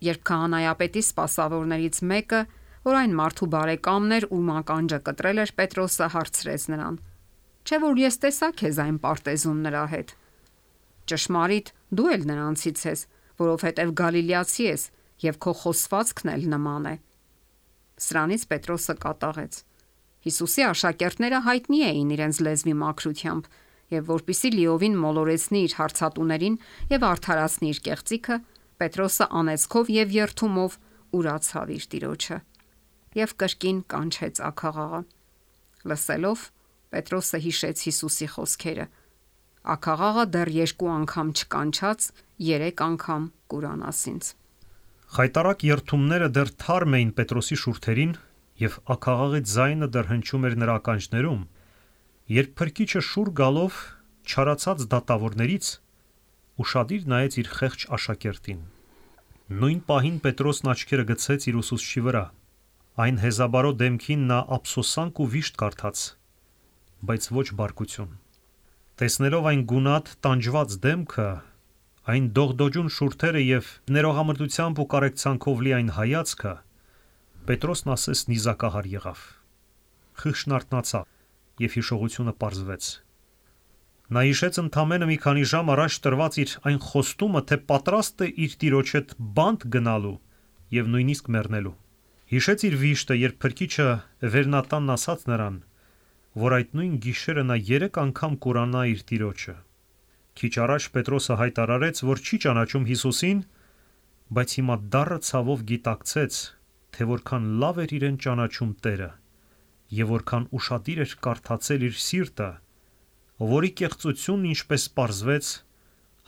երբ քահանայապետի սպասավորներից մեկը, որ այն մարդու բարեկամն էր, ում ականջը կտրել էր Պետրոսը, հարցրեց նրան. «Չէ՞ որ ես տեսա քեզ այն պարտեզում նրա հետ»։ «Ճշմարիտ, դու էլ նրանցից ես, որովհետև գալիլեացի ես, եւ քո խոսվածքն էլ նման է»։ Սրանից Պետրոսը կատաղեց։ Հիսուսի աշակերտները հայտնի էին իրենց լեզվի մաքրությամբ, եւ որpիսի լիովին մոլորեցնի իր հարցատուներին եւ արդարացնի իր կեղծիքը, Պետրոսը անեծքով եւ երթումով ուրացավ իր տիրոջը եւ կրկին կանչեց աքաղաղը։ Լսելով, Պետրոսը հիշեց Հիսուսի խոսքերը. «Աքաղաղը դեռ 2 անգամ չկանչած, 3 անգամ կուրանաս ինձ»։ Խայտառակ երթումները դեռ թարմ էին Պետրոսի շուրթերին, եւ աքաղաղի ձայնը դեռ հնչում էր նրա ականջներում, երբ փրկիչը շուռ գալով չարացած դատավորներից ուշադիր նայեց իր խեղճ աշակերտին։ Նույն պահին Պետրոսն աչքերը գցեց իր ուսուցչի վրա։ Այն հեզաբարո դեմքին նա ափսոսանք ու վիշտ կարդաց, բայց ոչ բարկություն։ Տեսնելով այն գունատ, տանջված դեմքը, այն դողդոջուն շուրթերը եւ ներողամտությամբ ու կարեկցանքով լի այն հայացքը, Պետրոսն ասես նիզակահար եղավ։ Խիղճն արթնացավ եւ հիշողությունը պարզվեց։ Նա հիշեց ընդամենը մի քանի ժամ առաջ տրված իր այն խոստումը, թե պատրաստ է իր տիրոջ հետ բանտ գնալու եւ նույնիսկ մեռնելու։ Հիշեց իր վիշտը, երբ Փրկիչը Վերնատանն ասաց նրան, որ այդ նույն գիշերը նա 3 անգամ կուրանա իր տիրոջը։ Քիչ առաջ Պետրոսը հայտարարեց, որ չի ճանաչում Հիսուսին, բայց հիմա դառը ցավով գիտակցեց, թե որքան լավ էր իրեն ճանաչում Տերը եւ որքան ուշադիր էր կարդացել իր սիրտը, որի կեղծությունն ինչպես պարզվեց,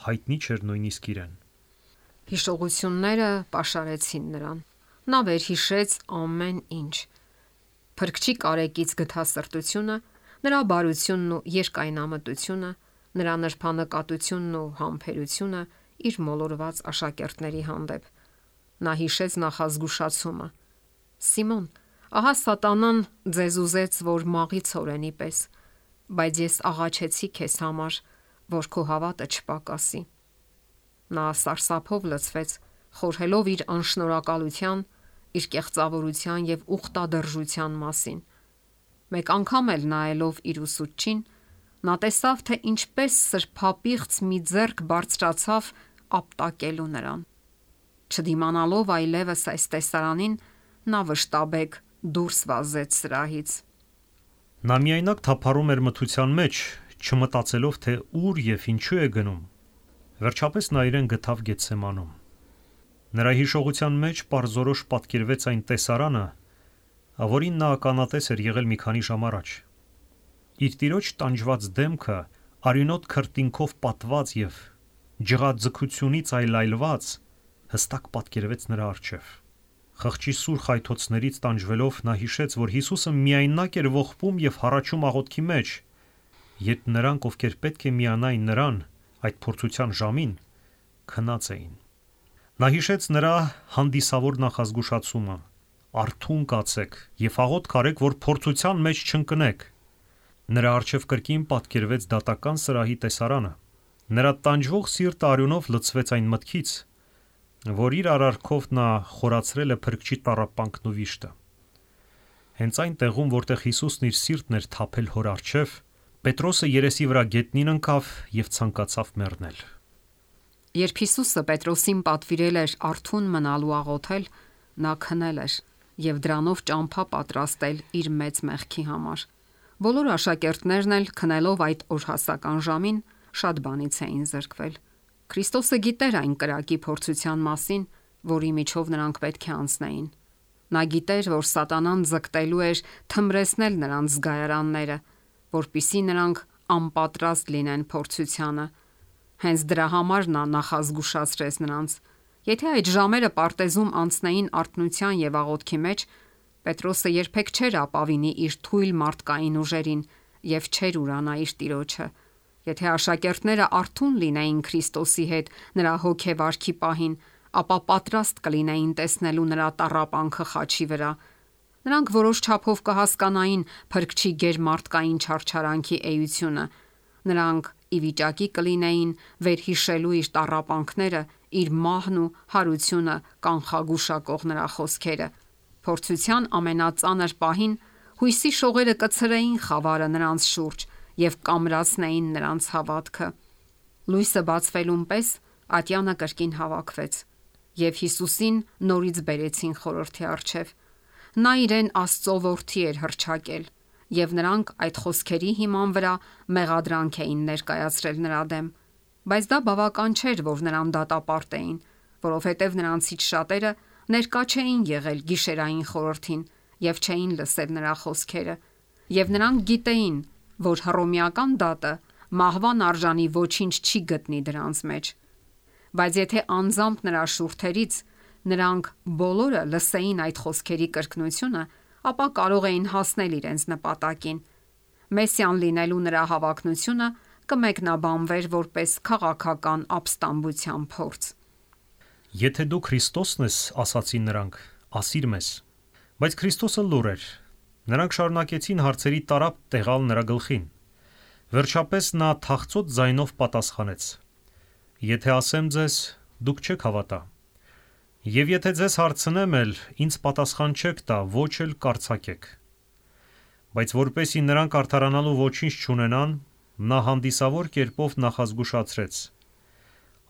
հայտնի չէր նույնիսկ իրեն։ Հիշողությունները պաշարեցին նրան։ Նա վերհիշեց ամեն ինչ։ Փրկչի կարեկից գթասրտությունը, նրա բարությունն ու երկայնամտությունը, նրա նրբանկատությունն ու համբերությունը իր մոլորված աշակերտների հանդեպ։ Նա հիշեց նախազգուշացումը. Սիմոն, ահա սատանան ձեզ ուզեց, որ մաղի ցորենի պես, բայց ես աղաչեցի քեզ համար, որ քո հավատը չպակասի։ Նա սարսափով լցվեց, խորհելով իր անշնորհակալության, իր կեղծավորության եւ ուխտադրժության մասին։ Մեկ անգամ էլ նայելով իր ուսուցչին, նա տեսավ, թե ինչպես սրբապիղծ մի ձեռք բարձրացավ ապտակելու նրան։ Չդիմանալով այլևս այս տեսարանին, նա վշտաբեկ դուրս վազեց սրահից։ Նա միայնակ թափառում էր մթության մեջ, չմտածելով, թե ուր եւ ինչու է գնում։ Վերջապես նա իրեն գտավ Գեթսեմանում։ Նրա հիշողության մեջ պարզորոշ պատկերվեց այն տեսարանը, որին նա ականատես էր եղել մի քանի ժամ առաջ։ Իր տիրոջ տանջված դեմքը արյունոտ քրտինքով պատված եւ ջղաձգությունից այլայլված հստակ պատկերվեց նրա առջև։ Խղճի սուր խայթոցներից տանջվելով նա հիշեց, որ Հիսուսը միայնակ էր ողբում եւ հառաչում աղոթքի մեջ, երբ նրանք, ովքեր պետք է միանային նրան այդ փորձության ժամին, քնած էին։ Նա հիշեց նրա հանդիսավոր նախազգուշացումը. «Արթուն կացեք եւ աղոթք արեք, որ փորձության մեջ չընկնեք»։ Նրա առջև կրկին պատկերվեց դատական սրահի տեսարանը։ Նրա տանջվող սիրտը արյունով լցվեց այն մտքից, որ իր արարքով նա խորացրել է Փրկչի տառապանքն ու վիշտը։ Հենց այն տեղում, որտեղ Հիսուսն իր սիրտն էր թափել հոր առջև, Պետրոսը երեսի վրա գետնին ընկավ եւ ցանկացավ մեռնել։ Երբ Հիսուսը Պետրոսին պատվիրել էր արթուն մնալու աղոթել, նա քնել էր եւ դրանով ճամփա պատրաստել իր մեծ մեղքի համար։ Բոլոր աշակերտներն էլ քնելով այդ օրհասական ժամին շատ բանից էին զրկվել։ Քրիստոսը գիտեր այն կրակի փորձության մասին, որի միջով նրանք պետք է անցնեին։ Նա գիտեր, որ սատանան ձգտելու էր թմրեցնել նրանց զգայարանները, որպիսի նրանք անպատրաստ լինեն փորձությանը։ Հենց դրա համար նա նախազգուշացրեց նրանց. եթե այդ ժամերը պարտեզում անցնեին արթնության եւ աղոթքի մեջ, Պետրոսը երբեք չէր ապավինի իր թույլ մարդկային ուժերին եւ չէր ուրանա իր տիրոջը։ Եթե աշակերտները արթուն լինեին Քրիստոսի հետ նրա հոգեվարքի պահին, ապա պատրաստ կլինեին տեսնելու նրա տառապանքը խաչի վրա։ Նրանք որոշ չափով կհասկանային Փրկչի գերմարդկային չարչարանքի էությունը։ Նրանք ի վիճակի կլինեին վերհիշելու իր տառապանքները, իր մահն ու հարությունը կանխագուշակող նրա խոսքերը։ Փորձության ամենածանր պահին հույսի շողերը կցրեին խավարը նրանց շուրջ եւ կամրացնեին նրանց հավատքը։ Լույսը բացվելուն պես ատյանը կրկին հավաքվեց եւ Հիսուսին նորից բերեցին խորհրդի առջև։ Նա իրեն Աստծո որդի էր հռչակել եւ նրանք այդ խոսքերի հիման վրա մեղադրանք էին ներկայացրել նրա դեմ, բայց դա բավական չէր, որ նրան դատապարտեին, որովհետեւ նրանցից շատերը ներկա չէին եղել գիշերային խորհրդին եւ չէին լսել նրա խոսքերը, եւ նրանք գիտեին, որ հռոմեական դատը մահվան արժանի ոչինչ չի գտնի դրանց մեջ։ Բայց եթե անձամբ նրա շուրթերից նրանք բոլորը լսեին այդ խոսքերի կրկնությունը, ապա կարող էին հասնել իրենց նպատակին։ Մեսիան լինելու նրա հավակնությունը կմեկնաբանվեր որպես քաղաքական ապստամբության փորձ։ Եթե դու Քրիստոսն ես, ասացին նրանք, ասիր մեզ։ Բայց Քրիստոսը լուռ էր։ Նրանք շարունակեցին հարցերի տարափ տեղալ նրա գլխին։ Վերջապես նա թախծոտ ձայնով պատասխանեց. Եթե ասեմ ձեզ, դուք չեք հավատա։ Եվ եթե ձեզ հարցնեմ էլ, ինձ պատասխան չեք տա, ոչ էլ կարծակեք։ Բայց որպեսի նրանք արդարանալու ոչինչ չունենան, Նա հանդիսավոր կերպով նախազգուշացրեց.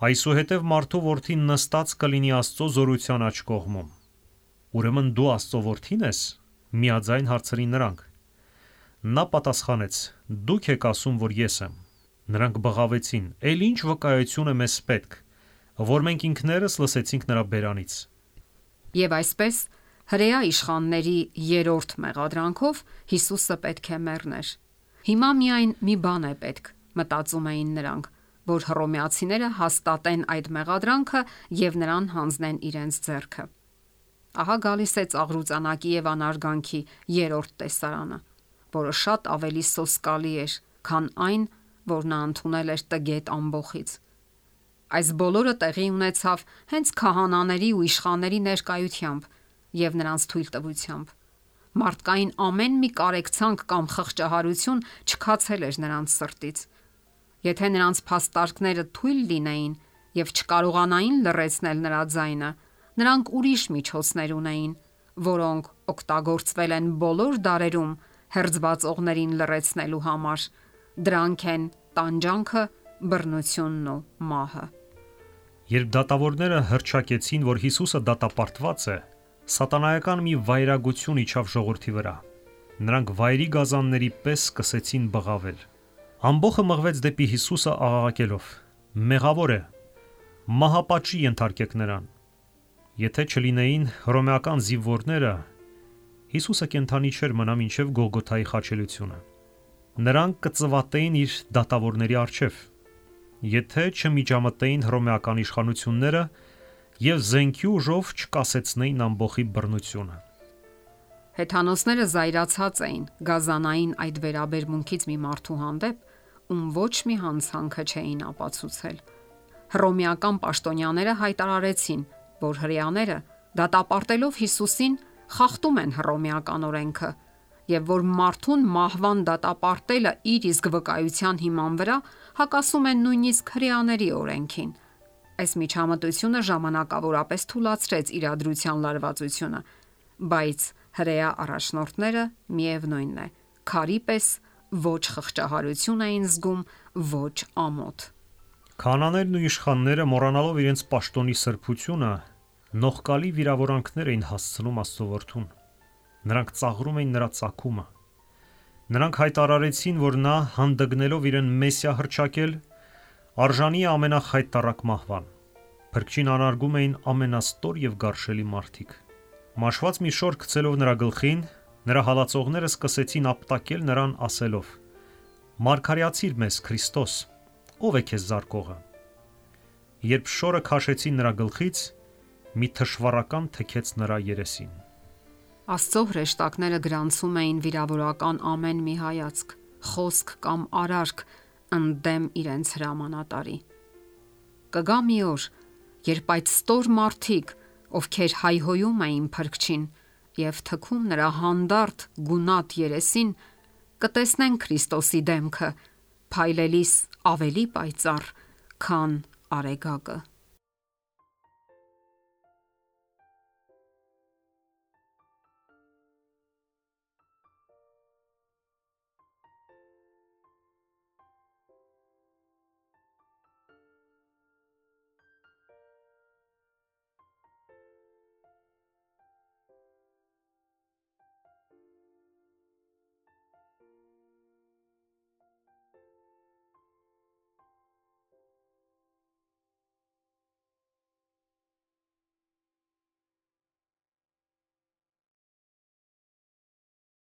Այսուհետև մարդու որդին նստած կլինի Աստծո զորության աջ կողմում։ Ուրեմն դու Աստծո որդին ես, միաձայն հարցրին նրանք։ Նա պատասխանեց. Դուք եք ասում, որ ես եմ։ Նրանք բղավեցին. Էլ ինչ վկայություն է մեզ պետք, որ մենք ինքներս լսեցինք նրա բերանից։ Եվ այսպես հրեա իշխանների երրորդ մեղադրանքով Հիսուսը պետք է մեռներ։ Հիմա միայն մի բան է պետք, մտածում էին նրանք, որ հռոմեացիները հաստատեն այդ մեղադրանքը եւ նրան հանձնեն իրենց ձեռքը։ Ահա գալիս է ծաղրուծանակի եւ անարգանքի երրորդ տեսարանը, որը շատ ավելի սոսկալի էր, քան այն, որ նա ընդունել էր տգետ ամբոխից։ Այս բոլորը տեղի ունեցավ հենց քահանաների ու իշխանների ներկայությամբ եւ նրանց թույլտվությամբ։ Մարդկային ամեն մի կարեկցանք կամ խղճահարություն չքացել էր նրանց սրտից։ Եթե նրանց փաստարկները թույլ լինեին եւ չկարողանային լռեցնել նրա ձայնը, նրանք ուրիշ միջոցներ ունեին, որոնք օգտագործվել են բոլոր դարերում հերձվածողներին լռեցնելու համար։ Դրանք են տանջանքը, բռնությունն ու մահը։ Երբ դատավորները հռչակեցին, որ Հիսուսը դատապարտված է, սատանայական մի վայրագություն իջավ ժողովրդի վրա։ Նրանք վայրի գազանների պես սկսեցին բղավել։ Ամբոխը մղվեց դեպի Հիսուսը աղաղակելով. Մեղավոր է, մահապատժի ենթարկեք նրան։ Եթե չլինեին հռոմեական զինվորները, Հիսուսը կենդանի չէր մնա մինչև Գողգոթայի խաչելությունը։ Նրանք կծվատեին իր դատավորների առջև, եթե չմիջամտեին հռոմեական իշխանությունները եւ զենքի ուժով չկասեցնեին ամբոխի բռնությունը։ Հեթանոսները զայրացած էին գազանային այդ վերաբերմունքից մի մարդու հանդեպ, ում ոչ մի հանցանքը չէին ապացուցել։ Հռոմեական պաշտոնյաները հայտարարեցին, որ հրեաները դատապարտելով Հիսուսին խախտում են հռոմեական օրենքը եւ որ մարդուն մահվան դատապարտելը իր իսկ վկայության հիման վրա հակասում են նույնիսկ հրեաների օրենքին։ Այս միջամտությունը ժամանակավորապես թուլացրեց իրադրության լարվածությունը, բայց հրեա առաջնորդները միևնույնն է, քարի պես ոչ խղճահարություն էին զգում, ոչ ամոթ։ Քահանաներն ու իշխանները, մոռանալով իրենց պաշտոնի սրբությունը, նողկալի վիրավորանքներ էին հասցնում Աստծո որդուն։ Նրանք ծաղրում էին նրա ծագումը։ Նրանք հայտարարեցին, որ նա հանդգնելով իրեն Մեսիա հռչակել, արժանի է ամենախայտառակ մահվան։ Փրկչին անարգում էին ամենաստոր եւ գարշելի մարդիկ։ Մաշված մի շոր գցելով նրա գլխին, նրա հալածողները սկսեցին ապտակել նրան ասելով. Մարգարեացիր մեզ, Քրիստոս, ով է քեզ զարկողը։ Երբ շորը քաշեցին նրա գլխից, մի թշվառական թեքեց նրա երեսին։ Աստծո հրեշտակները գրանցում էին վիրավորական ամեն մի հայացք, խոսք կամ արարք ընդդեմ իրենց հրամանատարի։ Կգա մի օր, երբ այդ ստոր մարդիկ, ովքեր հայհոյում էին Փրկչին եւ թքում նրա հանդարտ գունատ երեսին, կտեսնեն Քրիստոսի դեմքը, փայլելիս ավելի պայծառ, քան արեգակը։